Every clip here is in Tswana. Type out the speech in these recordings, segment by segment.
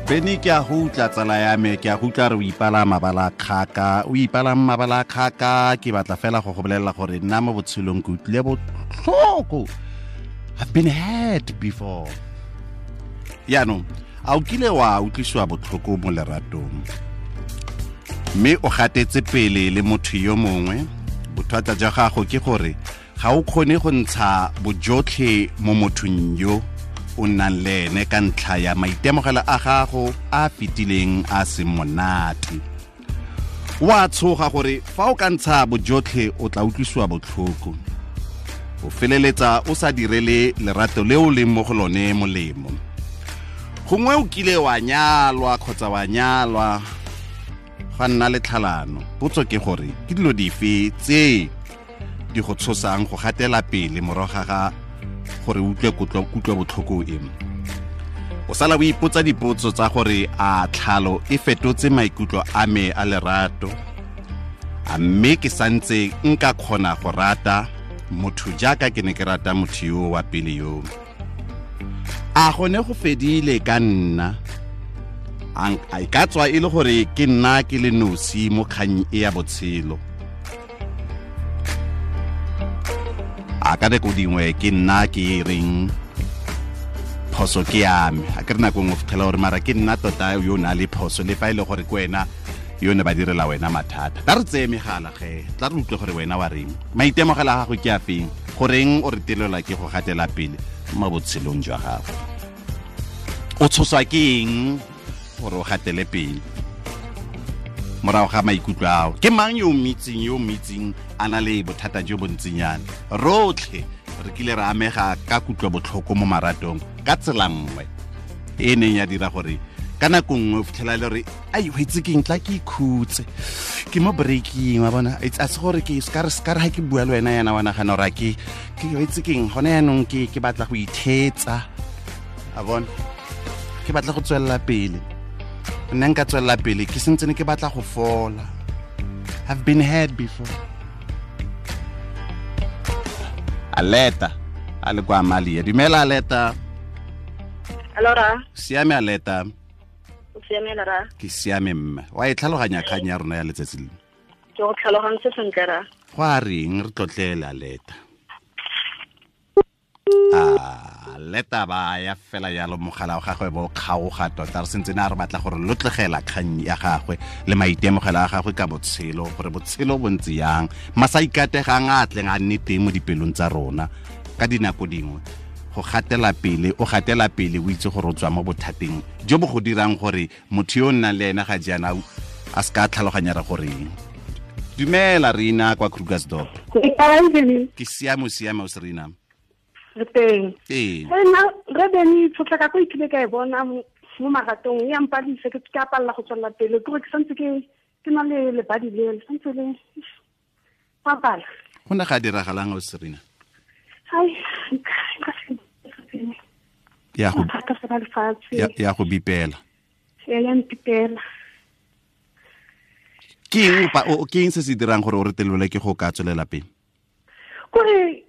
Bene, ke a go utla, tsala ya me, ke a go utla re o ipala mabala kgaka, o ipala mabala kgaka. Ke batla fela go go bolelela gore nna mo botshelong ke utlwile botlhoko. I've been hurt before. Yaanong a o kile wa utlwisiwa botlhoko mo leratong mme o gatetse pele le motho yo mongwe? Bothata jwa gago ke gore ga o kgone go ntsha bojotlhe mo mothong yo o nnang le ene ka ntlha ya maitemogelo a gago a fetileng a seng monate. Wa tshoga gore fa o ka ntsha bojotlhe o tla utlwisiwa botlhoko, o feleletsa o sa direle lerato le o leng mo go lone molemo. Gongwe o kile wa nyalwa kgotsa wa nyalwa ga nna le tlhalano. Potso ke gore ke dilo dife tse di go tshosang go gatela pele morago ga gore utlwe kutlo botlhoko e? O sala o ipotsa dipotso tsa gore a tlhalo e fetotse maikutlo a me a lerato, a mme ke santse nka kgona go rata motho jaaka ke ne ke rata motho yo wa pele yo? A gone go fedile ka nna? A e ka tswa e le gore ke nna ke le nosi mo kgang e ya botshelo? A ka nako dingwe ke nna ke reng phoso ke ya me? A ke re nako nngwe fitlhela gore mara ke nna tota yo o na le phoso, le fa e le gore ke wena yo ne ba direla wena mathata. Tla re tseye megala ge, tla re utlwe gore wena wa reng, maitemogelo a gago ke a feng, goreng o re telelwa ke go gatela pele mo botshelong jwa gago, o tshoswa ke eng gore o gatele pele morago ga maikutlo ao? Ke mang yo o mitseng, yo o mitseng a na le bothata jo bontsinyana? Rotlhe re kile re amega ka kutlo botlhoko mo maratong ka tsela nngwe e neng ya dira gore ka nako nngwe o fitlhela le gore ai, o itse keng, tla ke ikhutse, ke mo breaking wa bona. A se gore ke ska re ska re ha ke bua le wena yana wa nagana gore ke o itse keng, gone yaanong ke batla go ithetsa, a bona ke batla go tswelela pele, nna nka tswelela pele, ke sentse ne ke batla go fola. I've been hurt before. Aleta a le kwa Amalia. Dumela, Aleta. Allora. Siame, Aleta? O siame, ra? Ke siame, mme. Wa e tlhaloganya kgang ya rona ya letsatsi le? Ke go tlhalogantse sentle, ra. Go a reng, re tlotlele, Aleta. A leta ba ya fela yalo, mogala wa gagwe bo kgaoga tota. Re sentse ne a re batla gore lotlegela kgang ya gagwe le maitemogelo a gagwe ka botshelo, gore botshelo bo ntse yang, masa ikategang a tleng a nne teng mo dipelong tsa rona ka dinako dingwe. Go gatela pele, o gatela pele o itse gore o tswa mo bothateng jo bo go dirang gore motho yo o nnang le ena ga jaana a se ka tlhaloganya re goreng. Dumela, Rina kwa Krugersdorp. Ke siame, o siame o se, Rina? Re teng. Ee. Nna re bene tshotlaka ko ikile ka e bona mo maratong e ampadise, ke a palela go tswelela pele, ke gore ke santse ke na le lebadi le le santse le papala. Go ne ga diragalang o, Serena? Ai, ya go thata fela lefatshe. Ya go bipela. Ya mpipela. Ke eng ke eng se se dirang gore o re telele ke go ka tswelela pele? Kore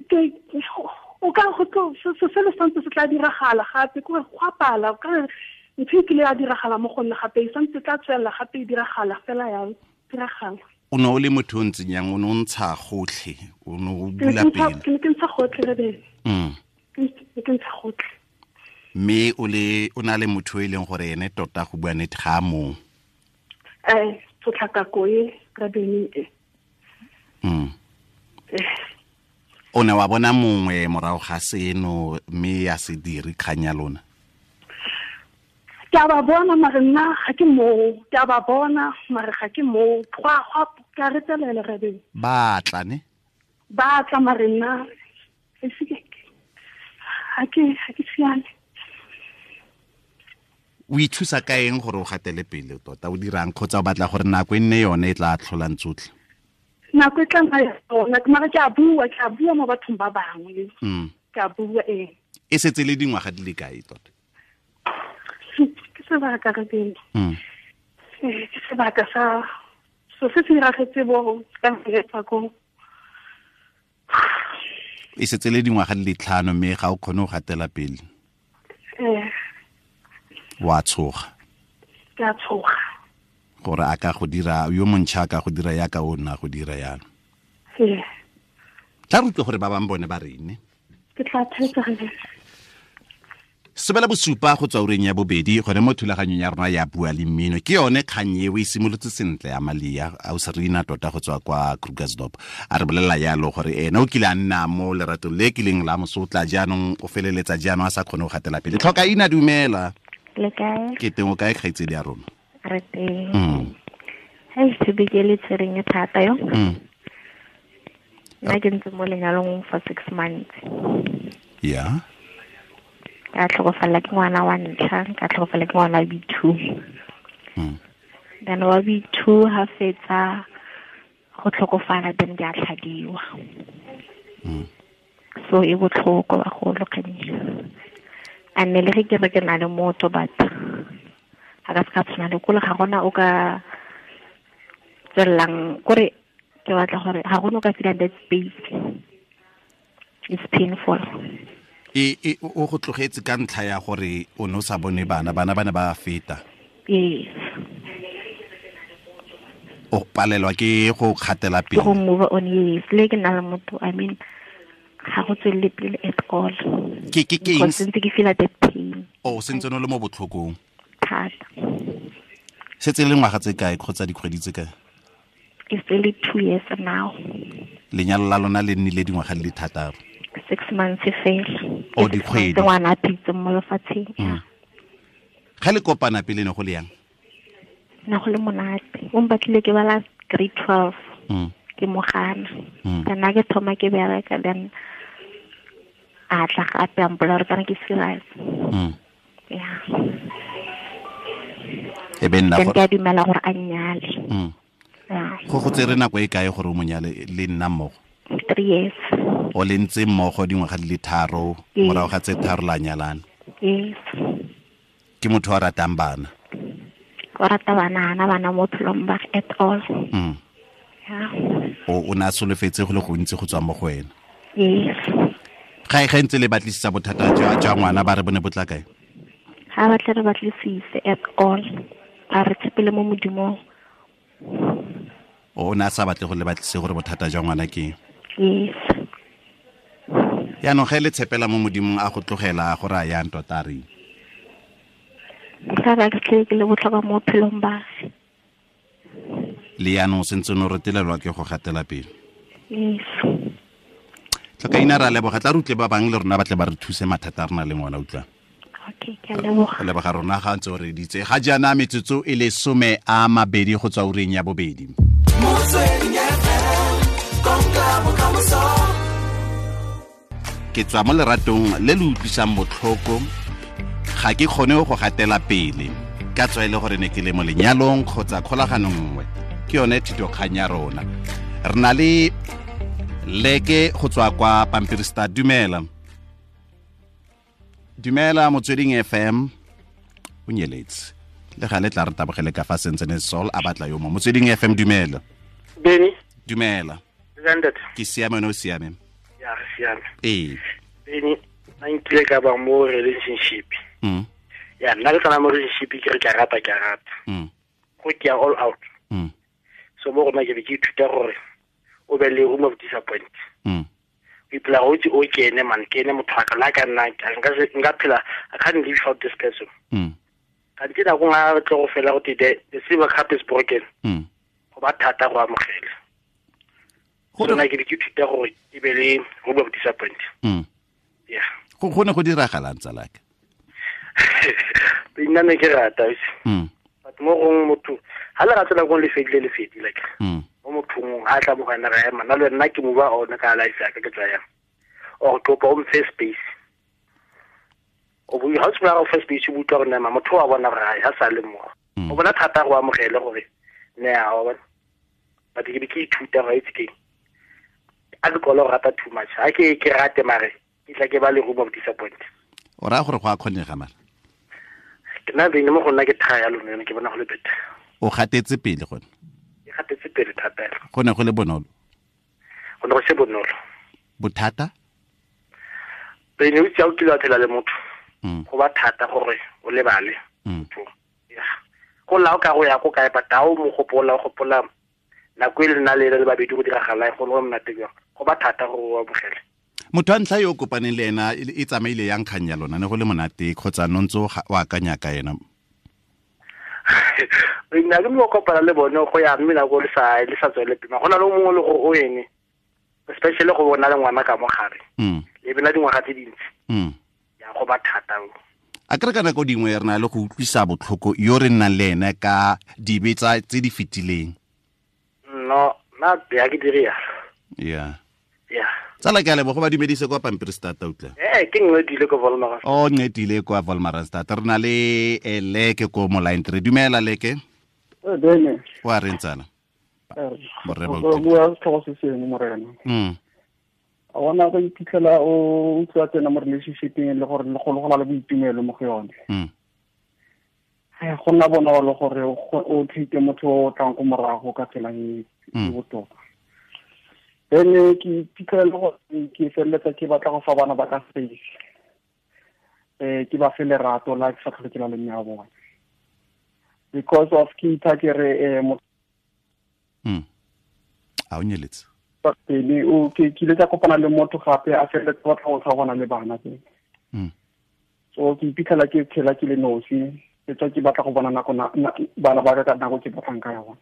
o ka go tlo se se le santse se tla diragala gape, kore go apala o ka ntho e kile ya diragala mo go nna gape, e santse tla tswelela gape e diragala fela ya diragala. O ne o le motho o ntseng yang? O ne o ntsha gotlhe, o ne o bula pele? Ke ne ke ntsha gotlhe, re bene. Ke ke ntsha gotlhe. Mme o le o na le motho e leng gore ene tota go bua nnete ga a mong. Tshotlakako e, re bene e. O ne wa bona mongwe morago ga seno mme ya se dire kgang ya lona? Ke a ba bona, mare nna ga ke moo. Ke a ba bona, mare ga ke moo. Gwa ke a retelela, re bene. Ba tla ne? Ba tla, mare nna e se ke ga ke siame. O ithusa ka eng gore o gatele pele tota? O dirang, kgotsa o batla gore nako e nne yone e tla tlholang tsotlhe? Nako e tla nna yona, mara ke a bua, ke a bua mo bathong ba bangwe. Ke a bua, ee. E setse le dingwaga di le kae tota? Ke sebaka, re bene. Ke sebaka sa so se se diragetse bo ka ngefa ko. E setse le dingwaga di le 5 mme ga o kgone go gatela pele. Wa tshoga. Ke a tshoga gore a ka go dira yo montšha ka go dira yaka o nna go dira yalo. Ee. Tla re utlwe gore ba bangwe bone ba reng. Ke tla thetsa ge. 7:30 go tswa ureng ya bobedi gone mo thulaganyong ya rona ya Bua le Mmino. Ke yone kgang eo e simolotse sentle ya Malia a o Serena tota go tswa kwa Krugersdorp. A re bolelela yalo gore ena o kile a nna mo leratong le kileng la mosotla jaanong o feleletsa jaanong a sa kgone go gatela pele. Tlhoka ina dumela. Le kae? Ke teng o kae kgaitsedi ya rona? Re teng. Hei, topic e le tshwereng e thata yo. Nna ke ntse mo lenyalong for 6 months. Yeah. Ka tlhokofala ke ngwana wa ntlha, ka tlhokofala ke ngwana wa B2. Then wa B2 ha fetsa go tlhokofala, then ke a tlhadiwa. So e botlhoko bagolo kgang. A nne le ge ke re ke na le motho, but ga ka se ka tshwana le kole, ga gona o ka tswelelang kore ke batla gore ga gona o ka feelang that space. It's painful. E o go tlogetse ka ntlha ya gore o ne o sa bone bana, bana ba ne ba feta. Yes. O palelwa ke go kgatela pele. Go move on, yes. Le ke na le motho, I mean, ga go tswelele pele at all. Ke eng? Sentse ke feel that pain. O sentse no le mo botlhokong. Thata. Setse le ngwaga tse kae kgotsa dikgwedi tse kae? It's really 2 years now. Lenyalo la lona le nnile dingwaga di le thataro. 6 months fela. O dikgwedi. Ngwana a phetse mo lefatsheng. Ga le kopana pele ne go le yang? Na go le monate. O mbatlile ke bala grade 12. Ke mogana. Kana ke thoma ke bereka, then a tla gape a mpolela gore kana ke serious. Yeah. E be nna gore ke a dumela gore a nnyale. Yeah. Go tsere nako e kae gore o monyale le nna mmogo? 3 years. O le ntse mmogo dingwaga di le 3, morago ga tse 3 la nyalana. Yes. Ke motho a ratang bana. O rata bana, ana bana mo phelong ba at all. Yeah. O na solofetse go le gontsi go tswa mo go wena. Yes. Ga e ntse le batlisisa bothata jwa ngwana ba re bone botla kae? Ga ba tle re batlisise at all. A re tshepele mo Modimong. O na sa batle go le batlise gore bothata jwa ngwana ke? Yes. Yaanong ge le tshepela mo Modimong a go tlogela gore a yang tota re. Ka ba ke le botlhokwa mo phelong ba. Le yaanong sentse no retelelwa ke go gatela pele. Yes. Tlhoka ina ra leboga, tla re utlwe ba bangwe le rona ba tle ba re thuse mathata a rena le ngwana utlwa. Okay, ke a leboga. Leboga rona ga ntse o re ditse. Ga jaana metsotso e le 20 go tswa ureng ya bobedi. Ke tswa mo leratong le le utlwisang botlhoko, ga ke kgone go gatela pele. Ka tswa e le gore ne ke le mo lenyalong kgotsa kgolaganong nngwe. Ke yone thitokgang ya rona. Re na le Leke go tswa kwa Pampiri Star. Dumela. Dumela Motsweding FM. O nyeletse. Le gale tla re tabogele ka fa sentse ne Sol a batla yo mo. Motsweding FM dumela. Beni. Dumela. Zandet. Ke siame no siame. Ya re siame. Ee. Beni, nna nkile ka ba mo relationship. Ya nna le tsana mo relationship ke re ke rata ke rata. Go ke ya all out. So mo rona ke be ke ithuta gore o be le room of disappointment. O ipela go itse o ke ene man, ke ene motho wa ka la ka nna nka phela, I can't live without this person. Ka ntse nako nngwe a tlo go fela go te the silver cup is broken. Go ba thata go amogela. So nna ke be ke ithuta gore ke be le room of disappointment. Yeah. Go ne go diragalang tsalaka? Nna ne ke rata. But mo gongwe motho ha le rata nako le fedile le fedile like. Mo mothong a tla mo gana ga ema nna le nna ke move on ka life ya ka ke tswa yang. Or kopa o mfe space. O bo ha tswa go space o utlwa gore nama motho wa bona gore ha sa le mo. O bona thata go amogele gore ne a wa bona. But ke be ke ithuta ga itse ke. A ke go rata too much. Ha ke rate mare ke tla ke ba le room of disappointment. O ra gore go a kgonega mara. Ke nna bene mo go nna ke thaya lone ke bona go le better. O gatetse pele gone. Ke gatetse pele thata. Go ne go le bonolo. Go ne go se bonolo. Bothata? Bene o itse o kile wa phela le motho. Go ba thata gore o lebale. Yeah. Gopola o ka go ya ko kae but ha o mo gopola o gopola nako e le nna le le babedi go diragala go le monate jang go ba thata go amogela. Motho wa ntlha yo o kopaneng le ena e tsamaile yang kgang ya lona ne go le monate kgotsa no ntse o akanya ka ena? Nna ke mo kopana le bone go ya mme nako le sa tswele pele go na le mongwe le gore o ene especially go bona le ngwana ka mogare le bena dingwaga tse dintsi ya go ba thata. A kere ka nako dingwe re na le go utlwisa botlhoko yo re nnang le ene ka dibe tse di fetileng. No, nna ya ke dire yalo. Yeah. Yeah. Tsala ke a leboga ba dumedise kwa Pampierstad utlwa. Ke nqedile ko Wolmaranstad. Oh, nqedile kwa Wolmaranstad. Re na le Leke ko mo line 3. Dumela Leke. Bene. Wa reng tsala? Borre ba utlwa. Bua setlhogo se sengwe morena. A bona go iphitlhela o utlwa tsena mo relationship-eng le gore le go le boitumelo mo go yone. Go nna bonolo gore o treat motho o tlang ko morago ka tsela e botoka. Then ke iphitlhela gore ke feleletsa ke batla go fa bana ba ka space. Ke ba fe lerato la ke sa tlhole ke la le mme wa bone. Because of ke itha ke re A o nyeletse. Pele o ke ile ka kopana le motho gape a feleletsa batla go tlhagona le bana teng. So ke iphitlhela ke tshela ke le nosi, ke tswa ke batla go bona nako bana ba ka nako ke batlang ka yone.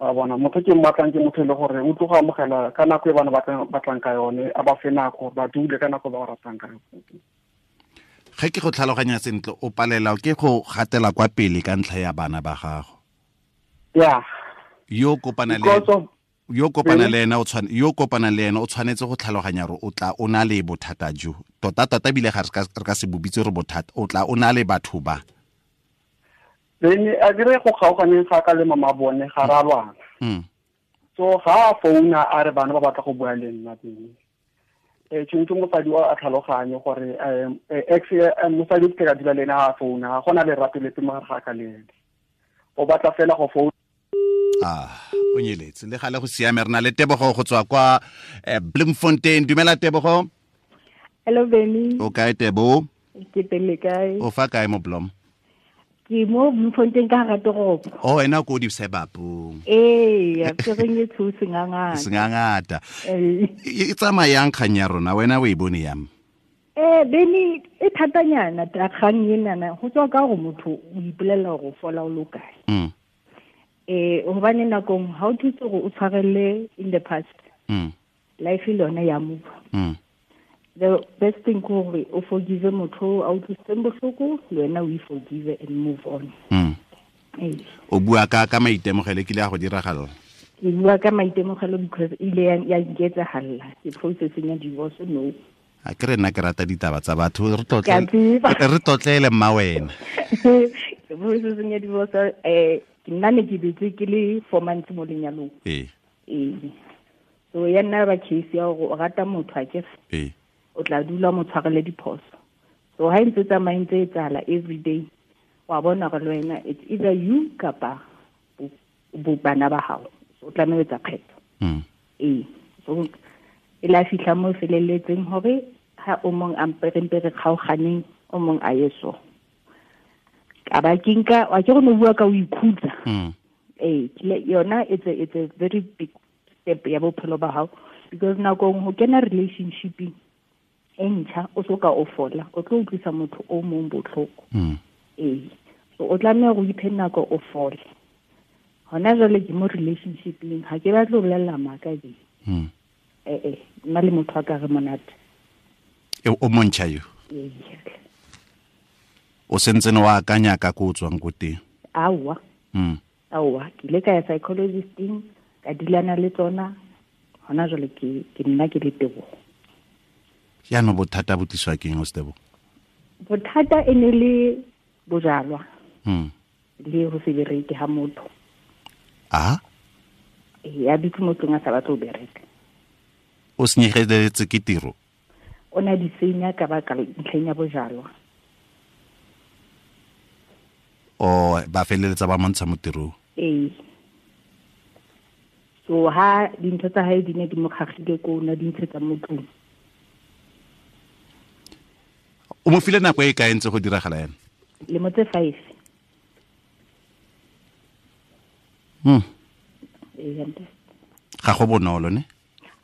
A bona motho ke mmatlang ke motho le gore o tloga amogela ka nako e bana batlang ka yone, a ba fe nako ba dule ka nako ba ba ratang ka yone. Ge ke go tlhaloganya sentle o palela ke go gatela kwa pele ka ntlha ya bana ba gago. Yeah. Yo kopana le ena o tshwanetse go tlhaloganya gore o tla o na le bothata jo. Tota tota bile ga re ka se bobitse re bothata, o tla o na le batho ba. Then a dire go kgaoganeng ga ka le mama bone ga ra lwana. So ga a founa a re bana ba batla go bua le nna teng. Tshwanetse mosadi o a tlhaloganye gore ex mosadi ke ka dula le ena a founa ga gona lerato lepe mo gare ga ka le ene. O batla fela go founa. O nyeletse le gale go siame re na le Tebogo go tswa kwa Bloemfontein. Dumela Tebogo. Hello Benny. O kae Tebo? Ke teng kae? O fa kae mo Blom? Ke mo Bloemfontein ka hara toropo. Oh, ena ko di sebapong. Ee, ke reng e tsho sengangata. Sengangata. E tsamayang kgang ya rona wena o e bone yang? Benny e thatanyana kgang enana go tswa ka gore motho o ipolela gore o fola o lo kae. Hobane nakong ha o thuse gore o tshwarelle in the past. Life le yona ya move. The best thing ke gore o forgive motho a utlwisitseng bohloko, le wena o forgive and move on. O bua ka maitemogelo kile a go diragala? Ke bua ka maitemogelo because ile ya nketsahalla ke processing ya divorce no. A ke re nna ke rata ditaba tsa batho re tlotlele mma wena. Ke processing ya divorce ke nna ne ke betse ke le 4 months mo lenyalong. So ya nna ba case ya gore o rata motho a ke o tla dula mo tshwarele diphoso. So ha ntse tsamaya ntse e tsala every day wa bona gore le wena it's either you kapa bo bana ba hao. So o tlameha ho etsa kgetho. So e la fihla mo feleletseng hore ha o mong a mperempe re kgaoganeng o mong a ye so. Ka ba ke nka wa ke go no bua ka o ikhutsa. Yona it's a very big step ya bophelo ba hao because nakong ho kena relationship e ntšha o soka o fola o tlo utlwisa motho o mong botlhoko. So o tlameha go iphe nako o fole. Hona jwale ke mo relationship-eng ha ke batle ho bolella maka ke. Nna le motho a ka re monate. O montšha yo? O sentse wa akanya ka ko o tswang ko teng? Aowa. Aowa, ke ile ka ya psychologisting ka dilana le tsona hona jwale ke nna ke le Tebogo. Jaanong bothata bo tliswa ke eng o Tebogo? Bothata e ne le bojalwa. Le ho se bereke ha motho. A? A dutse mo tlong a sa batle ho bereka. O senyegetse ke tiro? O na di senya ka baka ntlheng ya bojalwa. O ba feleletsa ba montsha mo tirong? Ee. So ha dintho tsa hae di ne di mo kgagile ko na di ntshetsa mo tlong. O mo file nako e kae ntse go diragala yana? Lemo tse 5. Ga go bonolo ne?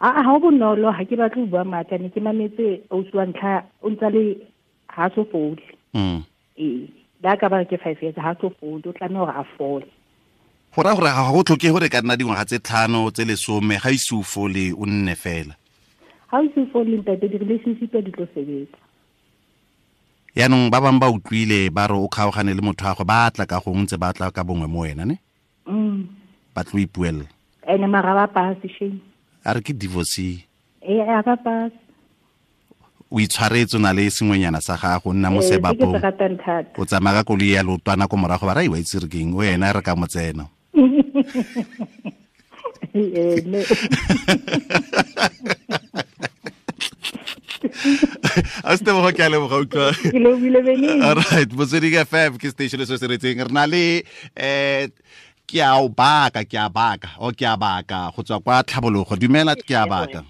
A ga go bonolo, ga ke batle go bua maaka, ne ke mametse ausi wa ntlha o ntse le ha so fole. Ee, la ka ba ke 5 years ha so fole, o tlameha hore a fole. Go raya gore ga go tlhoke gore ka nna dingwaga tse 5 tse 10 ga ise o fole o nne fela. Ha o se fole ntate, di-relationship di tlo sebetsa. Yaanong ba bangwe ba utlwile ba re o kgaogane le motho wa go ba tla ka gongwe ntse ba tla ka bongwe mo wena ne? Ba tlo ipuelela. Ene mara ba pass shame. A re ke divorce. Ee, a ba pass. O itshwaretse o na le sengwenyana sa gago, nna mo sebapong. O tsamaya ka koloi ya leotwana ko morago ba ra iwa itse re keng, o ena re ka mo tsena. A se tebogo ke a leboga utlwa. Ke lebile bene. All right, Motsweding FM ke station se se retseng. Re na le ke a o baka, ke a baka, o ke a baka go tswa kwa Tlhabologo. Dumela ke a baka.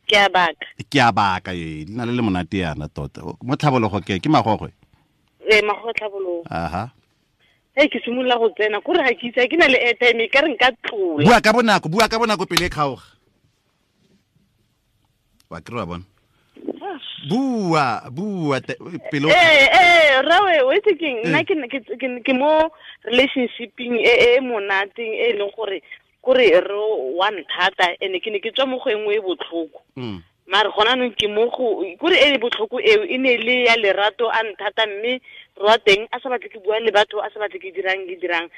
Ke a baka. Ke a baka e, le na le le monate yana tota. Mo Tlhabologo ke Magogwe. Ee, Magogwe Tlhabologo. Aha. Hey, ke simolola go tsena, kore ga ke itse ke na le airtime e ka re nka tlola. Bua ka bonako, bua ka bonako pele e kgaoga. Wa kry wa bona. Bua, bua pele. Rawe, o itse keng, nna ke mo relationshipeng e monateng e leng gore kore re wa nthata ene ke ne ke tswa mo go engwe e botlhoko. Mare gona nong ke mo go kore e botlhoko eo e ne le ya lerato a nthata, mme re wa teng a sa batle ke bua le batho, a sa batle ke dirang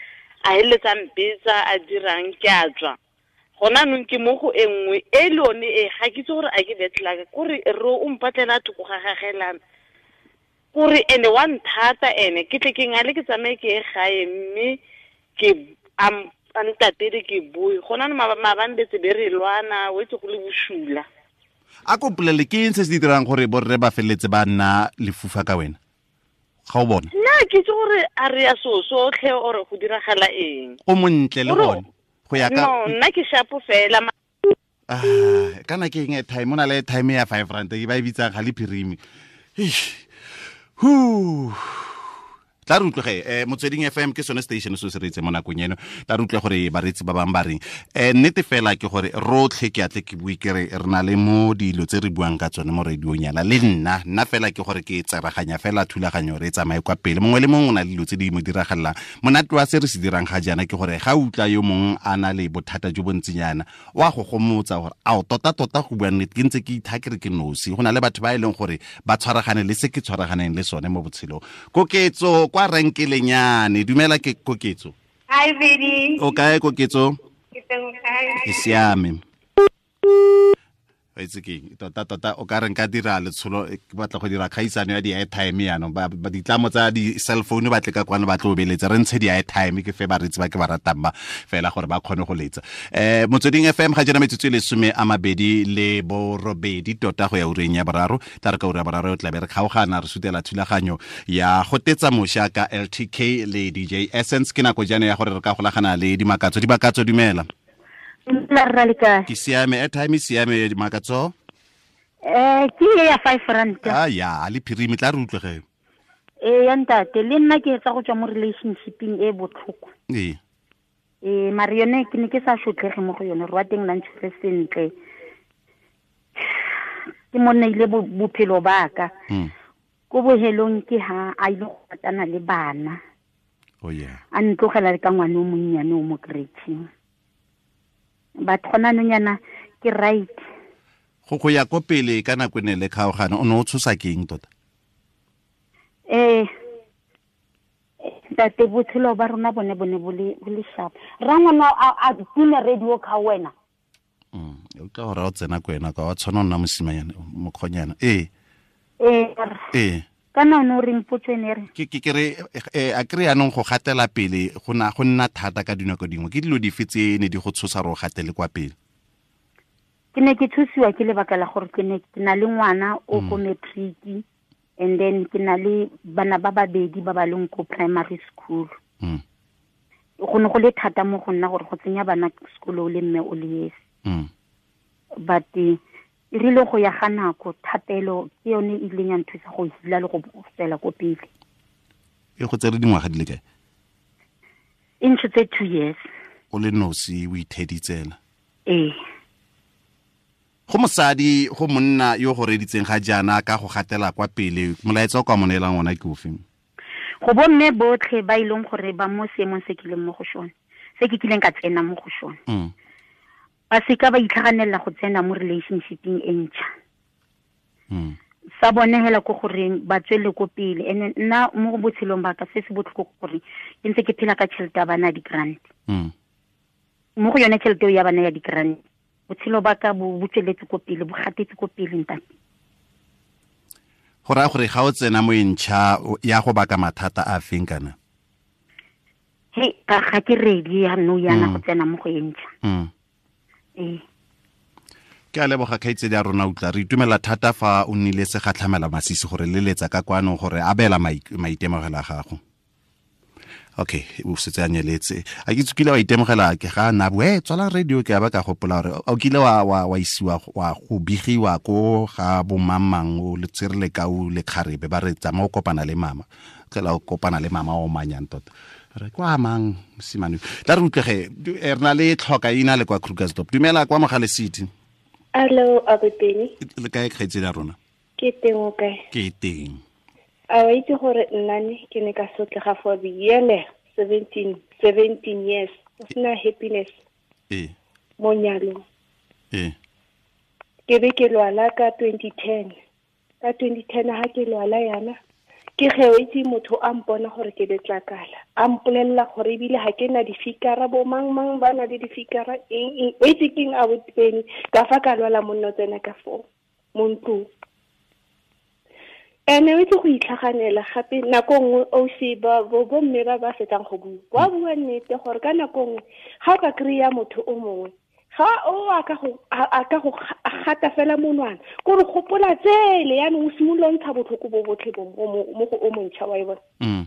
a heletsa mpetsa a dirang ke a tswa. Gona nong ke mo go e nngwe e le yone e ga ke itse gore a ke betlaka kore re o mpatlela thoko ga gagelana kore ene wa nthata ene ke tle ke ngale ke tsamaye ke ye gae mme ke a ntatele ke bue. Gona no maabane betse be re lwana o itse go le bosula. A ko mpolelle ke eng se se dirang gore borre ba feleletse ba nna lefufa ka wena? Ga o bona? Nna ke itse gore a re ya so sotlhe ore go diragala eng. O montle le gone. Go ya ka No, nna ke shapo fela. Kana ke eng airtime, o na le airtime ya 5 rand e ba e bitsang ga le phirimi. Tla re utlwe Motsweding FM ke sone station se se reetse mo nakong eno. Tla re utlwe gore bareetsi ba bangwe ba reng. Nnete fela ke gore rotlhe ke atle ke bue ke re re na le mo dilo tse re buang ka tsone mo radiong yana le nna. Nna fela ke gore ke tseraganya fela thulaganyo re tsamaye kwa pele. Mongwe le mongwe o na le dilo tse di mo diragalelang. Monate wa se re se dirang ga jaana ke gore ga utlwa yo mongwe a na le bothata jo bontsinyana wa go gomotsa gore ao tota tota go bua nnete ke ntse ke itha ke re ke nosi. Go na le batho ba e leng gore ba tshwaragane le se ke tshwaraganeng le sone mo botshelong. Koketso kwa renkelenyane, dumela ke Koketso. Hi Vidi. O kae Koketso? Ke teng kae? Ke siame. Wa itse keng, tota tota o ka re nka dira letsholo, ke batla go dira kgaisano ya di-airtime yaanong. Ba ditlamo tsa di-cell phone ba tle ka kwano ba tlo beletsa, re ntshe di-airtime ke fe bareetsi ba ke ba ratang ba fela gore ba kgone go letsa. Motsweding FM ga jaana metsotso e 28 tota go ya ureng ya boraro. Tla re ka ura ya boraro tla be re kgaogana re sutela thulaganyo ya go tetsa moša ka LTK le DJ Essence. Ke nako jaana ya gore re ka golagana le Dimakatso. Dimakatso, dumela. Ke siame, airtime e siame Dimakatso. Ke ya 5 rand. Ah ya, le phirimi tla re utlwe ge. Ya ntate, le nna ke etsa go tswa mo relationshipeng e botlhoko. Ee. Mare yone ke ne ke sa shotlhege mo go yone, re wa teng la ntshwere sentle. Ke monna ile bophelo ba ka. Ko bohelong ke ha a ile go ratana le bana. Oh yeah. A ntlogela le ka ngwana o monnyane o mo creche. But gona nonyana ke right. Go ya ko pele ka nako ne le kgaogana o ne o tshosa ke eng tota? Ntate, botshelo ba rona bone bo le sharp. Rangwana a tune radio ka wena. O tla gore o tsena ko wena ka wa tshwana nna mosimanyana mokgonyana. Ee. Kana o re mpotse ne re. Ke re a kry anong go gatela pele go nna thata ka dinako dingwe. Ke dilo dife tse ne di go tshosa re o gatele kwa pele? Ke ne ke tshosiwa ke lebaka la gore ke ne ke na le ngwana o ko matric, and then ke na le bana ba babedi ba ba leng ko primary school. Go ne go le thata mo go nna gore go tsenya bana sekolo le mme o le esi. But e rile go ya ga nako thapelo ke yone e ileng ya nthusa go hila le go tswela ko pele. E go tsere dingwaga di le kae? E ntshotse 2 years. o le nosi o itheditsela. Ee. Go mosadi go monna yo go reditseng ga jaana ka go gatela kwa pele, molaetsa o ka mo neelang ona ke ofe? Go bomme botlhe ba ileng gore ba mo seemong se kileng mo go sone, se ke kileng ka tsena mo go sone. Ba seka ba itlhaganela go tsena mo relationshipeng e ntšha. Sa bone hela ko goreng ba tswele ko pele. Ene nna mo botshelong ba ka se se botlhoko gore ke ntse ke phela ka tšhelete ya bana di-grant. Mo go yone tšhelete ya bana ya di-grant, botshelo ba ka bo tsweletse ko pele, bo gatetse ko pele ntate. Go raya gore ga o tsena mo e ntšha ya go baka mathata a feng kana? He, ga ke ready ya nou yana go tsena mo go e ntšha. Ee. Ke a leboga kgaitsedi ya rona utlwa, re itumela thata fa o nnile se gatlhamela masisi gore leletsa ka kwano gore abela maitemogelo a gago. Okay, o setse a nyeletse. A ke tsukile wa itemogela ke ga na bue tswala radio ke a ba ka gopola gore o kile wa isiwa wa go bigiwa ko ga bo mamang o le tsere ka o le kgarebe ba re tsama o kopana le mama. Tlela o kopana le mama o manyang tota. Re kwa mang mosimane. Tla re utlwege re na le tlhoka ina le kwa Krugersdorp. Dumela kwa Mogale City. Hello, Aboteni. Le kae kgaitsedi ya rona? Ke teng o kae? Ke teng. A wa itse gore nna ne ke ne ka sotlega for the year 17 years. O sena happiness. Ee. Mo nyalong. Ee. Ke be ke lwala ka 2010. Ka 2010 ha ke lwala yana, ke ge o itse motho a mpona gore ke letlakala. A mpolelela gore ebile ha ke na difikara, bo mang mang ba na le difikara eng. O itse keng Aboteni, ka fa ka lwala monna tsena ka fo mo ntlong. Ene o itse go itlhaganela gape nako nngwe o se ba bo mme ba ba fetang go bua. Wa bua nnete gore ka nako nngwe ga o ka kry-a motho o mongwe, ga o a ka go gata fela monwana, kore gopola tsele yaanong o simolola ntsha botlhoko bo botlhe bo mo go o montšha wa e bona.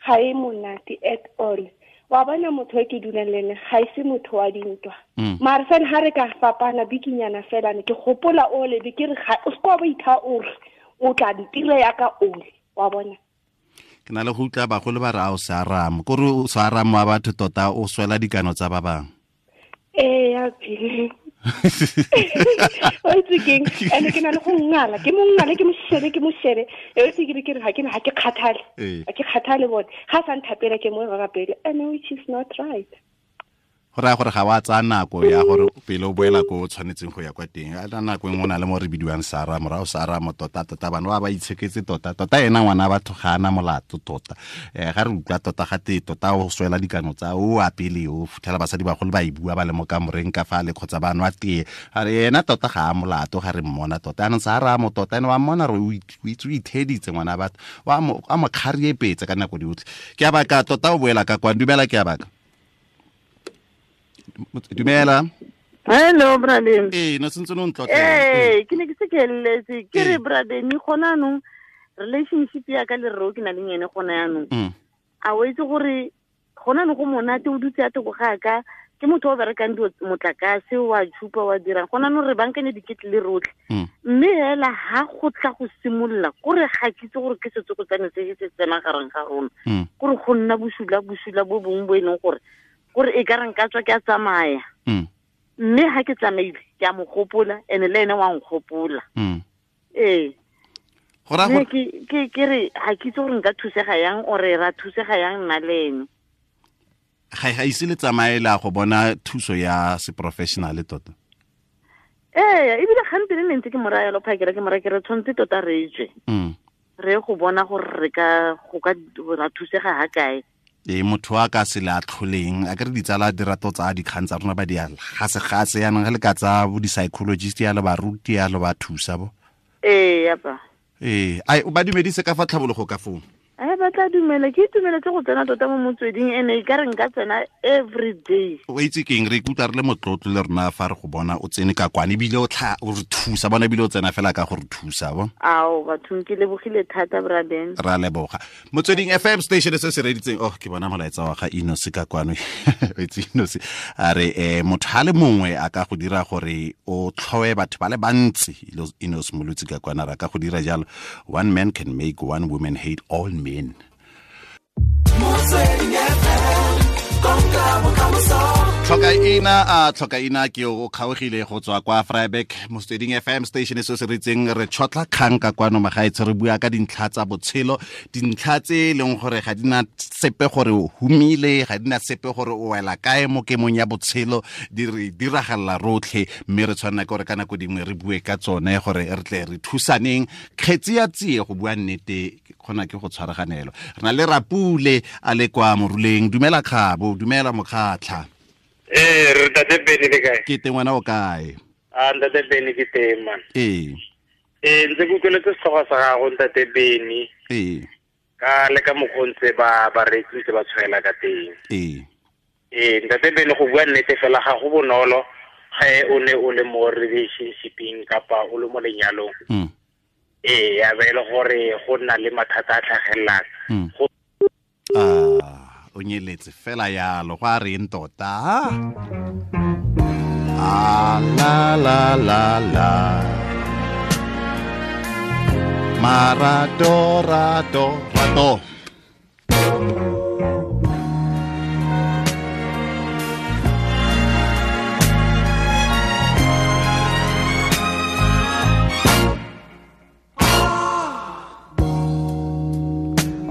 Ga e monate at all. Wa bona motho e ke dulang le ene ga e se motho wa dintwa. Mare fela ga re ka fapana bikinyana fela ne ke gopola ole be ke re ga o se kwa ba itha ore o tla ntira ya ka ole wa bona. Ke na le go utlwa bagolo ba re a o se aramo, kore o se aramo wa batho tota o swela dikano tsa ba bangwe. Ee, ya pele. O itse keng, ene ke na le go ngala, ke mo ngale, ke mo shebe. E o itse ke re ga ke kgathale. Ga ke kgathale bone. Ga sa nthapela ke mo rapele. And which is not right. Go raya gore ga wa tsaya nako ya gore pele o boela ko o tshwanetseng go ya kwa teng. A nako engwe o na le mo re bidiwang Sara, morago Sara mo tota tota bana ba itsheketse tota tota ena ngwana batho ga ana molato tota. Ga re utlwa tota ga te tota o swela dikano tsa o a pele o futhela basadi bagolo ba e bua ba le mo kamoreng ka fa le kgotsa ba nwa tee. A re ena tota ga a molato ga re mmona tota. Anong Sara mo tota ene wa mmona re o itse o itheditse ngwana batho. Wa mo a mo kgariepetse ka nako diotlhe. Ke a baka tota o boela ka kwa dumela ke a baka. Dumela. Hello, Bradeni. Ee, no sentse no ntlotlela. Ee, ke ne ke se ke letse. Ke re Bradeni gona anong relationship ya ka le rro ke na le ene gona yanong. A o itse gore gona anong go monate o dutse a toko ga ka ke motho o berekang dilo motlakase wa tshupa wa dirang gona anong re bankanye diketle le rotlhe. Mme hela ha go tla go simolola kore ga ke itse gore ke setsokotsane se se tsenang gareng ga rona. Kore go nna bosula bo bongwe bo e leng gore gore e ka reng ka tswa ke a tsamaya. Mme ha ke tsamaile ke a mo gopola ene le ene wa nkgopola. Ee. Ke re ga ke itse gore nka thusega yang ore ra thusega yang nna le ene. Ga ise le tsamaela go bona thuso ya se professional tota. Ee, ebile gantsi ne ntse ke mo raya lo phakela ke mo raya ke re tshwanetse tota re tswe. Re go bona gore re ka go ka ra thusega ha kae. E motho a ka se le atlholeng a ke re ditsala dirato tsa dikgang tsa rona ba di gase yanong ge le ka tsa bo di-psychologist ya le baruti ya le ba thusa bo. Ee, yapa. Ee, ai o ba dumedise ka fa tlhabologo ka foo. Ai ba tla dumela, ke itumeletse go tsena tota mo motsweding ene e ka re nka tsena every day. O itse keng re ikutlwa re le motlotlo le rona fa re go bona o tsene ka kwane ebile o tla o re thusa bona ebile o tsena fela ka go re thusa bo. Ao bathong ke lebogile thata Braden. Ra leboga. Motsweding FM station se se reditseng oh ke bona molaetsa wa ga Inosi ka kwano. O itse Inosi a re motho ha le mongwe a ka go dira gore o tlhoe batho ba le bantsi. Inosi Molotsi ka kwana ra ka go dira jalo. One man can make one woman hate all men. Motsweding FM, konka bokamoso. Tlhokaina a tlhokaina ke o kgaogile go tswa kwa Vryburg Motsweding FM station se se ritseng re tshotla kgang ka kwano magaetsho re bua ka dintlha tsa botshelo dintlha tse e leng gore ga di na sepe gore o humile ga di na sepe gore o wela kae mo kemong ya botshelo di re diragalela rotlhe mme re tshwanela ke gore ka nako dingwe re bue ka tsone gore re tle re thusaneng kgetsi ya tsie go bua nnete kgona ke go tshwaraganelo re na le rapule a le kwa moruleng dumela kgabo dumela mokgatlha ee re ntate Benny le kae ke teng wena o kae a ntate Benny ke teng man ee ee ntse ke utlweletse setlhogo sa gago ntate Benny ee ka le ka mokgwa ntse ba bareetsi ntse ba tshwaela ka teng ee ee ntate Benny go bua nnete fela ga go bonolo ge o ne o le mo relationshipeng kapa o le mo lenyalong ee ya be e le gore go nna le mathata a tlhagelelang o nyeletse fela yalo go a reng tota a la la la la marato rato rato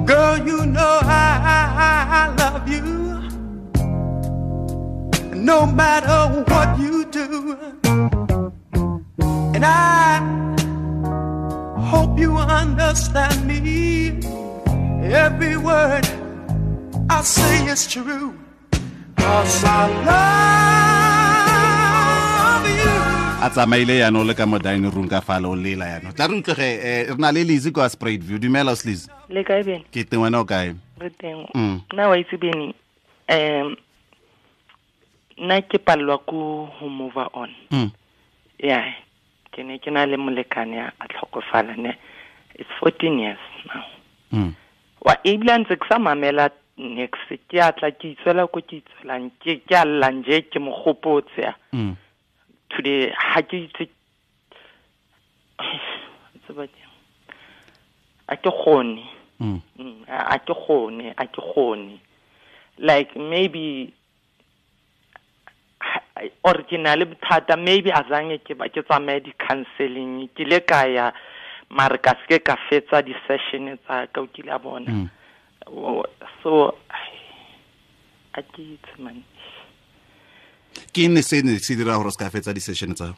Girl, you know I love you. No matter what you do. And I hope you understand me. Every word I say is true. 'Cause I love you. A tsamaile yaanong le ka mo dining room ka fale o lela yaanong tla re utlwege re na le Lizzy kwa Spruitview dumela o Lizzy le kae Bene ke teng wena o kae re teng nna wa itse Bene nna ke palelwa ko go move on yeah ke ne ke na le molekane a tlhokofala ne it's 14 years now wa ebile ntse ke sa mamela next ke a tla ke itswela ko ke itswelang ke a lla nje ke mo gopotse today ha ke itse a ke gone a ke gone like maybe or ke na le bothata maybe azange ke ba ke tsamaye di counseling ke le ka ya mare ka se ka fetsa di session tsa ka o kile a bona so a ke itse man ke ne se ne se dira gore se ka fetsa di session tsa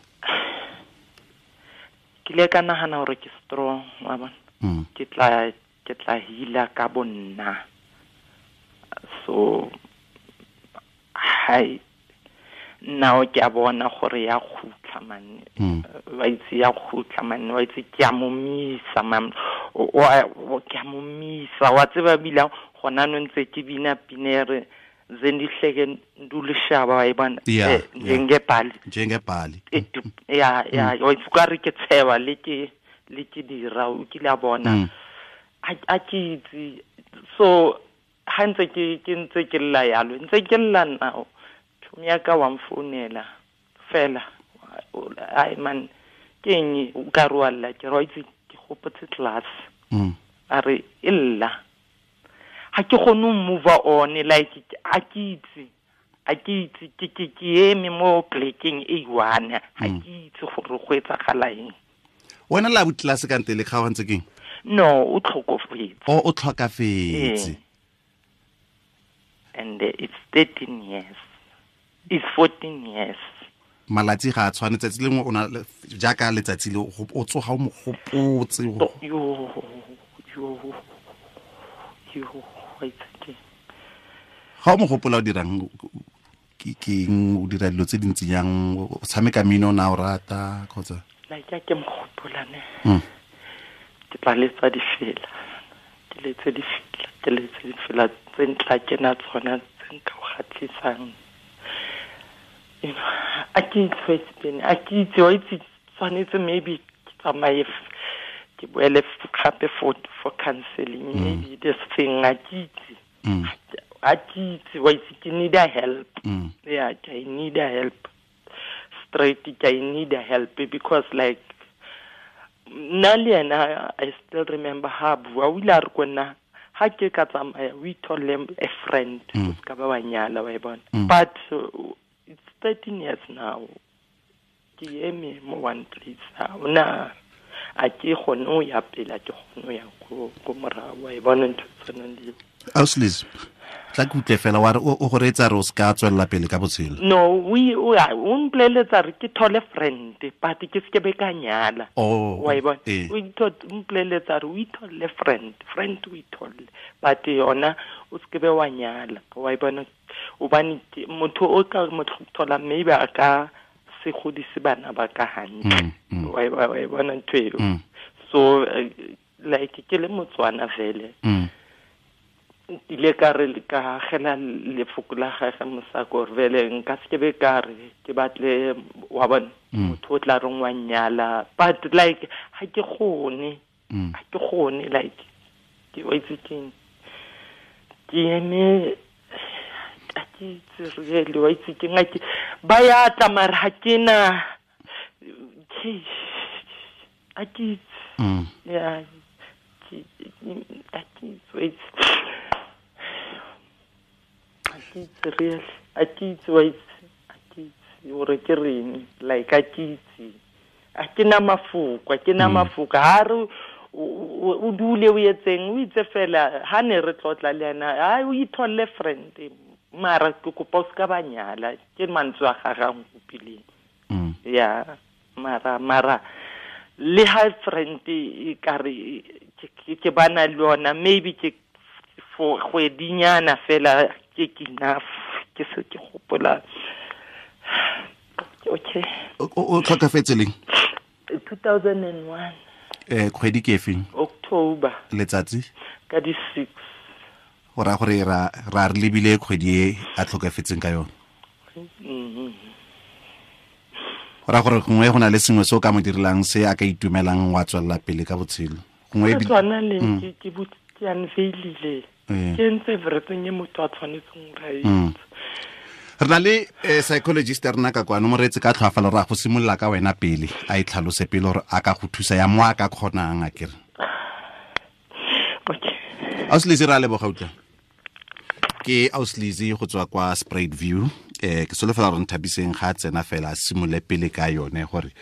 ke le ka nagana gore ke strong wa bona ke tla hila ka bonna so hai now ke a bona gore ya khutla man wa itse ya khutla man wa itse ke a momisa man o ke a momisa wa tseba bila gona no ntse ke bina pinere zendihleke ndulishaba wa ibona njengebhali ya ya wa itse ka re ke tshewa le ke dira o kile a bona a ke itse so ha ntse ke ntse ke lla yalo ntse ke lla now ya ka wa mfounela fela ai man ke eng o ka re wa lla ke re itse ke gopotse class a re illa ha ke gone move on like a ke itse ke eme mo plekeng e one ha ke itse gore go etsagala eng wena la class ka ntele ga wa ntse keng no o tlhokofetse o tlhokafetse and it's 13 years It's 14 years. Malatsi ga a tshwane tsatsi lengwe o na jaaka letsatsi le o tsoga o mo gopotse yo ga o mo gopola o dirang ke eng o dira dilo tse dintsi jang o tshameka mmino na o rata kgotsa like ke mo gopola ne ke tla letsa difela ke letse difela tse ntla ke na tsona tse nka o kgatlhisang. You know, I can't face pain. I can't tshwanetse maybe ke tsamaye ke boele gape for counseling maybe this thing I ke itse wa itse ke need a help yeah I need a help straight I need a help because like nna le yena I still remember ha bua o ile a re ko nna ha ke ka tsamaya we told them a friend o ska ba wa nyala wa e bona but 13 years now. Ke eme mo one place. Ha ona a ke kgone ho ya pele, a ke kgone ho ya ko morao. Wa e bona ntho e tshwanang le eo. Ausi, tla ke utlwe fela wa re o go reetsa re o se ka tswelela pele ka botshelo. No, o mpoleletsa re ke thole friend, but ke se ke be ka nyala. Oh, wa e bona? O mpoleletsa re o itholle friend, friend o itholle, but yona o se ke be wa nyala. Wa e bona? Hobane motho o ka mo thola maybe a ka se godise bana ba ka hantle. Wa e bona ntho eo? So like ke le Motswana vele. Ile ka re ka agela lefoko la gagwe mosako gore vele nka se ke be ka re ke batle wa bona motho o tla reng wa nyala, but like ha ke kgone, ha ke kgone, like ke wa itse keng, ke eme a ke itse really, wa itse keng, ke ba ya tla mara ha ke na a ke itse, yeah, a ke itse, wa itse. Real, a ke itse, wa itse, a ke itse gore ke reng, like a ke itse, a ke na mafoko, a ke na mafoko. Ha re o dule o etseng, o itse fela ha ne re tlotla le yena, ha o itholle friend, mara ke kopa o se ka ba nyala, ke mantswe a gagwe a nkopileng. Ya, mara le ha friend e ka re ke bana le yona, maybe ke for kgwedinyana fela ke enough, ke se ke gopola. Okay. O tlhokafetse leng? 2001. Kgwedi ke efeng? October. Letsatsi? Ka di 6. Go raya gore ra re lebile kgwedi e a tlhokafetseng ka yone. Go raya gore gongwe go na le sengwe se o ka mo direlang se a ka itumelang wa tswelela pele ka botshelo. Gongwe tshwana le ke ke unveilile. Ke ntse everything e motho a tshwanetseng gore a itse. Re na le psychologist ya rena ka kwano, moreetsi ka tlhoafalo, ra go simolola ka wena pele, a e tlhalose pele gore a ka go thusa ya mo a ka kgonang, a kere. Okay. Ausi Lizzy, re a leboga utlwa. Ke Ausi Lizzy go tswa kwa Sprite View. Ke solofela gore Nthabiseng ga a tsena fela a simolole pele ka yone gore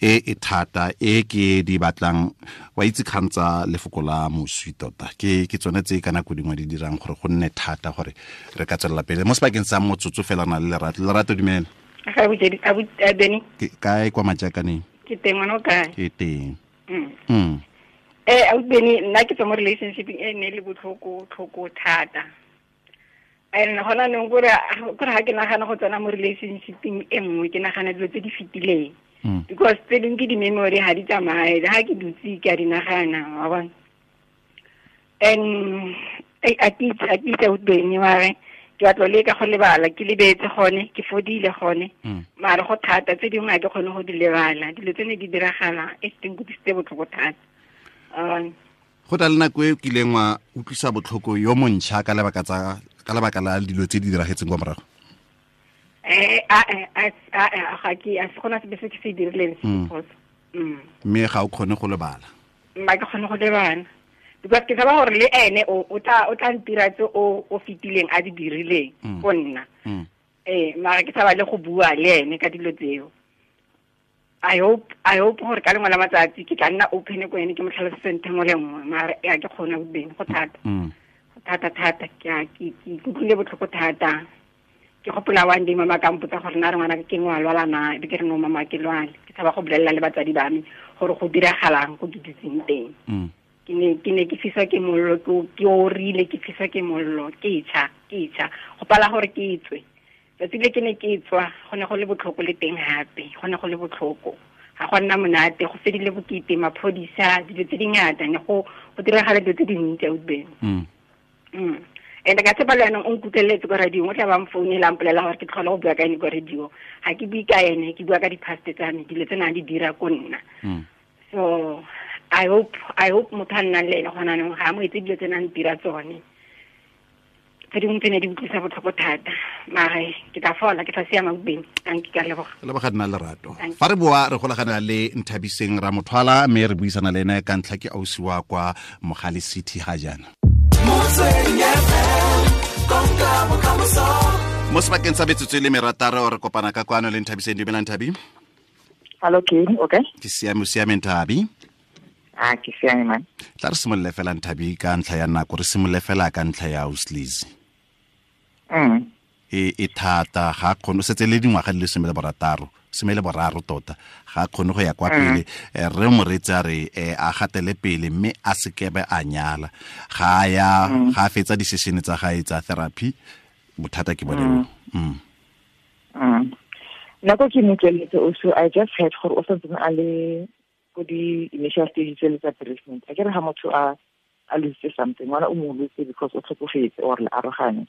e thata e ke di batlang, wa itse kgang tsa lefoko la moswi tota ke tsone tse ka nako dingwe di dirang gore go nne thata gore re ka tswelela pele mo sebakeng sa motsotso fela. Na le Lerato. Lerato, dumela. Ke kae kwa Majakaneng? Ke teng, ngwana o kae? Ke teng. Beni, nna ke tswa mo relationship e ne le botlhoko tlhoko thata. And hona nong gore ha ke nagana go tsena mo relationshipeng e nngwe, ke nagana dilo tse di fetileng. Because tse dingwe ke di-memory, ha di tsamaye, ha ke dutse ke a di nagana, wa bona. And a ke itse Beni, mare ke batla le ka go lebala, ke lebetse gone, ke fodile gone. Mare go thata, tse dingwe ha ke kgone go di lebala. Dilo tse ne di diragala, e teng go disitse botlhoko thata. Go tla le nako e o kileng wa utlwisa botlhoko yo montšha ka lebaka la dilo tse di diragetseng kwa morago? Ga ke a se gona sepe se ke se dirileng se phoso. Mme ga o kgone go lebala? Mma ke kgone go lebala. Because ke tshaba gore le ene o tla ntira tse o fetileng a di dirileng go nna. Mara ke tshaba le go bua le ene ka dilo tseo. I hope gore ka lengwe la matsatsi ke tla nna open ko ene, ke mo tlhalosetse ntho nngwe le nngwe, mara a ke kgone go beng, go thata. Go thata thata, ke utlwile botlhoko thata. Ke gopola one day mama ka mpotsa gore na re ngwana ke ngwe a lwala na, be ke re no mama ke lwale. Ke tshaba go bolelela le batsadi ba me gore go diragalang ko ke dutseng teng. Ke ne ke fiswa ke mollo, ke orile, ke fiswa ke mollo, ke tšha, go pala gore ke tswe. Tsatsi le ke ne ke tswa, go ne go le botlhoko le teng hape, go ne go le botlhoko. Ga go nna monate, go fedile bokete, maphodisa, dilo tse dingata, ne go diragala dilo tse dintsi a utlweng. And ka tshepa le yanong o nkutlweletse ko radio, o tla ba mfounela a mpolelela gore ke tlhole go bua ka ene ko radio. Ga ke bue ka ene, ke bua ka di-past tsa me, dilo tse nang di dira ko nna. So I hope motho a nnang le ene gona anong ga a mo etse dilo tse nang dira tsone. Tse dingwe tse ne di utlwisa botlhoko thata, mare ke tla fola, ke tla siama bobeng. Thank you, ka leboga. Leboga nna Lerato. Fa re boa re golagana le Nthabiseng Ramothwala, mme re buisana le ene ka ntlha ke ausi wa kwa Mogale City ga jaana. Motsweding FM, konka bokamoso. Mo sebakeng sa metsotso e le merataro re kopana ka kwano le Nthabiseng. Dumela Nthabi. Hello, ke okay? Ke siame, o siame Nthabi? Ah, ke siame man. Tla re simolole fela Nthabi ka ntlha ya nako, re simolole fela ka ntlha ya Uslizi. E thata, ga kgone, o setse le dingwaga di le 16 tota, ga kgone go ya kwa pele. Re moreetsi a re a gatele pele mme a sekebe a nyala. Ga ya ga fetsa di-session tsa gae tsa therapy, bothata ke bone. Nako ke mo tsweletse also, I just heard gore o santse a le ko di-initial stages tse le tsa bereavement. A ke re ga motho a lose something, ngwana o mo lose because o tlhokofetse or le arogane,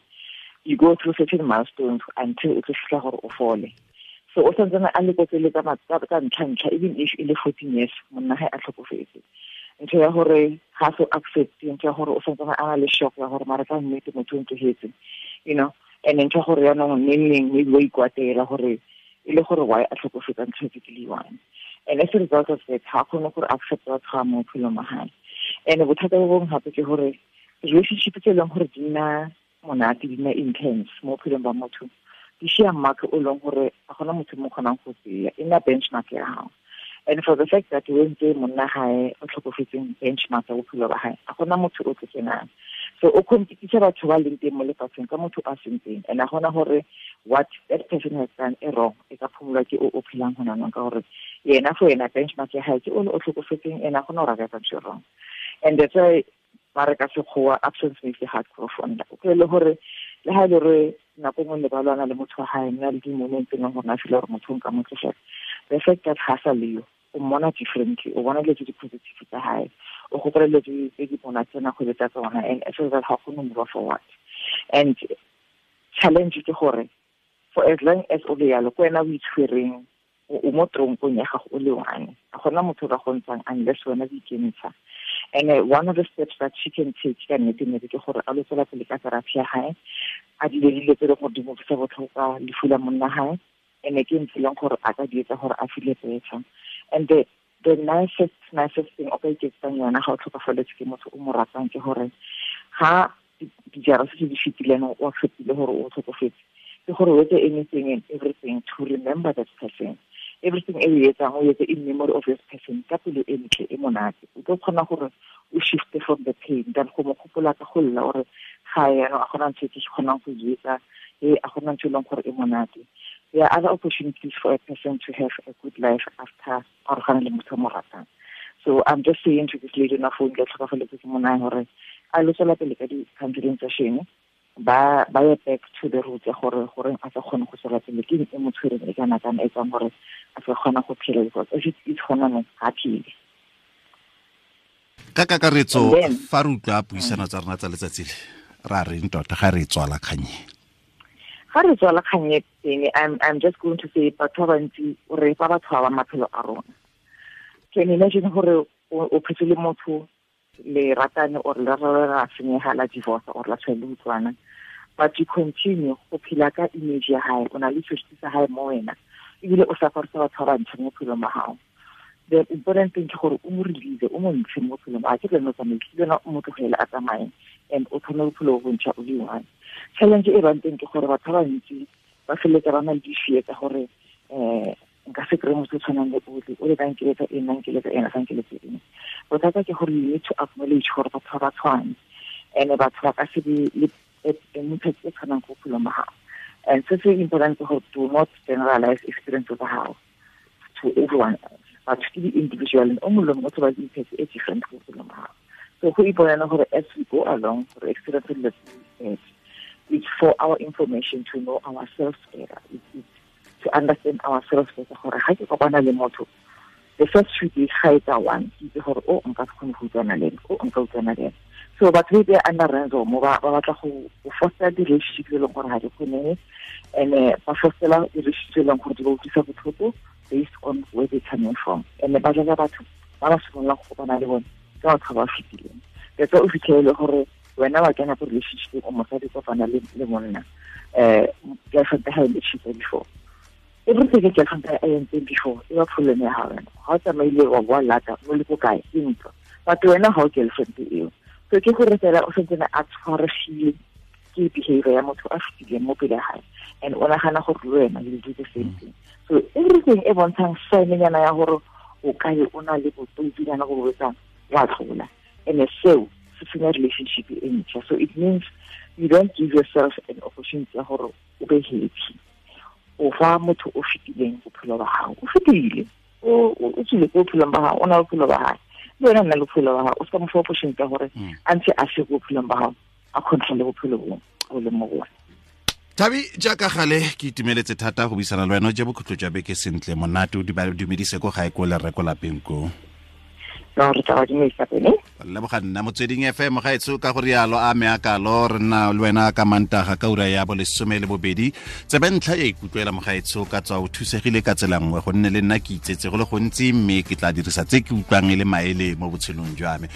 you go through certain milestones until o tlo fitlha gore o fole. So o santse a le ko tsele tsa ntlha, even if e le 14 years monna hae a tlhokofetse. Ntho ya gore ga so accept, ntho ya gore o santse a na le shock ya gore mara ka nnete motho o ntlogetse, you know. And ntho ya gore yaanong neng maybe wa ikwatela gore e le gore why a tlhokofetsa ntho e ke le one. And as a result of that, ga kgone gore accept batho ba mo bophelong ba hae. And bothata bo bongwe gape ke gore relationship tse e leng gore di nna monate, di nna intense mo bophelong ba motho, di share mark o leng gore ga gona motho mo kgonang go tseya, e nna benchmark ya gago. And for the fact that o entse monna hae o tlhokofetseng benchmark ya bophelo ba hae, ga gona motho o tlo kenang. So o competisa batho ba leng teng mo lefatsheng ka motho a seng teng, and a gona gore what that person has done e wrong, e ka phumolwa ke o phelang hona nong, ka gore yena for yena benchmark ya hae ke o tlhokofetseng, ena gona gore a ka etsa ntho e wrong. And that's why ba re ka sekgowa absence makes the heart grow fonder. O kry le gore le ha e le gore nako nngwe le ba lwana le motho wa hae, nna le di-moment tse leng gore na feel gore motho o nka mo tlogela, the fact that ha sa leyo, o mmona differently, o bona dilo tse di positive tsa hae, o gopola dilo tse di monate tsena go tsa tsona, and as a result ga kgone move forward. And challenge ke gore for as long as o le yalo, ke wena o itshwereng, o mo tronkong ya gago o le one, ga gona motho o ka go ntshang unless wena o ikentsha. And one of the steps that she can take ka nnete ke gore a lo tswela pele ka therapy ya hae, a dile dilo tse e leng gore di mo utlwisa botlhoko ka lefu la monna hae, and ke ntho e leng gore a ka di etsa gore a feel better. And the nicest thing o ka iketsang yona ga o tlhokafaletse ke motho o mo ratang ke gore ga dijara se di fetileng o acceptile gore o tlhokofetse, ke gore o etse anything and everything to remember that person. Everything e o etsang o etse in memory of this person ka pelo e ntle e monate. O tlo kgona gore o shift from the pain than go mo gopola ka go lla gore ga yana a gona ntho e ke kgonang go e etsa, e a gona ntho e leng gore e monate. There are other opportunities for a person to have a good life after arogana le motho o mo ratang. So I'm just saying to this lady na phone ke tlhokafaletse ke monna gore a lo tswela pele ka di-counseling session, ba ye back to the roots ya gore goreng a sa kgone go tswela pele, ke e mo tshwereng e kana kana e tsang gore a sa kgona go phela, because if it's gona no ga phele. Ka kakaretso fa re utlwa puisano tsa rona tsa letsatsi le, ra reng tota ga re tswala kganye? Ga re tswala kganye teng, I'm just going to say batho ba bantsi o re fa batho ba maphelo a rona. Can you imagine gore o phetse le motho le ratane or le ra senyega la divorce or la tshwele utlwana, but you continue go phela ka image ya hae, o na le seriti sa hae mo wena, ebile o safarisa batho ba bantšha mo bophelong ba gago. The important thing ke gore o mo release, o mo ntshe mo bophelong, a ke le no tsamaise, le wena o mo tlogele a tsamaye, and o thome bophelo bo bontšha o le one. Challenge e bang teng ke gore batho ba bantsi ba feleletsa ba na le di-fear tsa gore nka se kry-e motho o tshwanang le ole, o le ka nkeletsa eng, nna nkeletsa eng, a sa nkeletse eng. Bothata ke gore you need to acknowledge gore batho ba tshwane, and batho ba ka se be le impact e tshwanang ko bophelong ba gago. And se se important ke gore do not generalize experience tsa gago to everyone else. Batho ke di-individual, and o mongwe le mongwe o tlo ba le impact e different ko bophelong ba gago. So go iponela gore as we go along, gore experience dilo tse, it's for our information to know ourselves better. It's to understand ourselves better gore ga ke kopana le motho, the first few days ga etsa one, ke itse gore o nka se kgone go utlwana le ene, o nka utlwana le ene. So batho ba under ransom ba batla go foster di-relationship tse e leng gore ga di kgonege, and ba fostela di-relationship tse e leng gore di ba utlwisa botlhoko based on where they coming from. And ba jaaka batho ba ba simololang go kopana le bone ke batho ba ba fetileng. That's why o fitlhelele gore wena wa kena ko relationship o mosadi kopana le monna, girlfriend ya hae e cheated before. Everything ke girlfriend ya hae e before, e ba problem ya hao wena. Ha o tsamaile wa boa lata, o le ko kae, ke ntlo. But wena ha o girlfriend eo. So ke gore fela o sentse a tshwaregile Ke behavior ya motho a fetileng mo pele ga gae, and o nagana gore le wena you do the same thing. So everything e bontshang sign-nyana ya gore o kae o na le bototsinyana go boetsang, wa tlola. And seo se senya relationship e ntšha. So it means you don't give yourself an opportunity ya gore o be happy. O fa motho o fetileng bophelo ba gago, o fetile, o tswile ko bophelong ba gago, o na le bophelo ba gae, le wena nna le bophelo ba gago. O se ka mo fa opportunity ya gore a ntse a se ko bophelong ba gago, a controle bophelo bo o leng mo go bone. Thabi, jaaka gale ke itumeletse thata go buisana le wena. O je bokhutlo jwa beke sentle, monate, o dumedise ko gae ko le rre ko lapeng ko. No, re tla ba dumedisa pele. Leboga nna Motsweding FM gaetsho ka go rialo a me akalo re nna le wena ka Mantaga ka ura ya bo 12. Tsebe ntlha ya ikutlwela mogaetsho, ka tswa o thusegile ka tsela nngwe, gonne le nna ke itsetse go le gontsi, mme ke tla dirisa tse ke utlwang e le maele mo botshelong jwa me.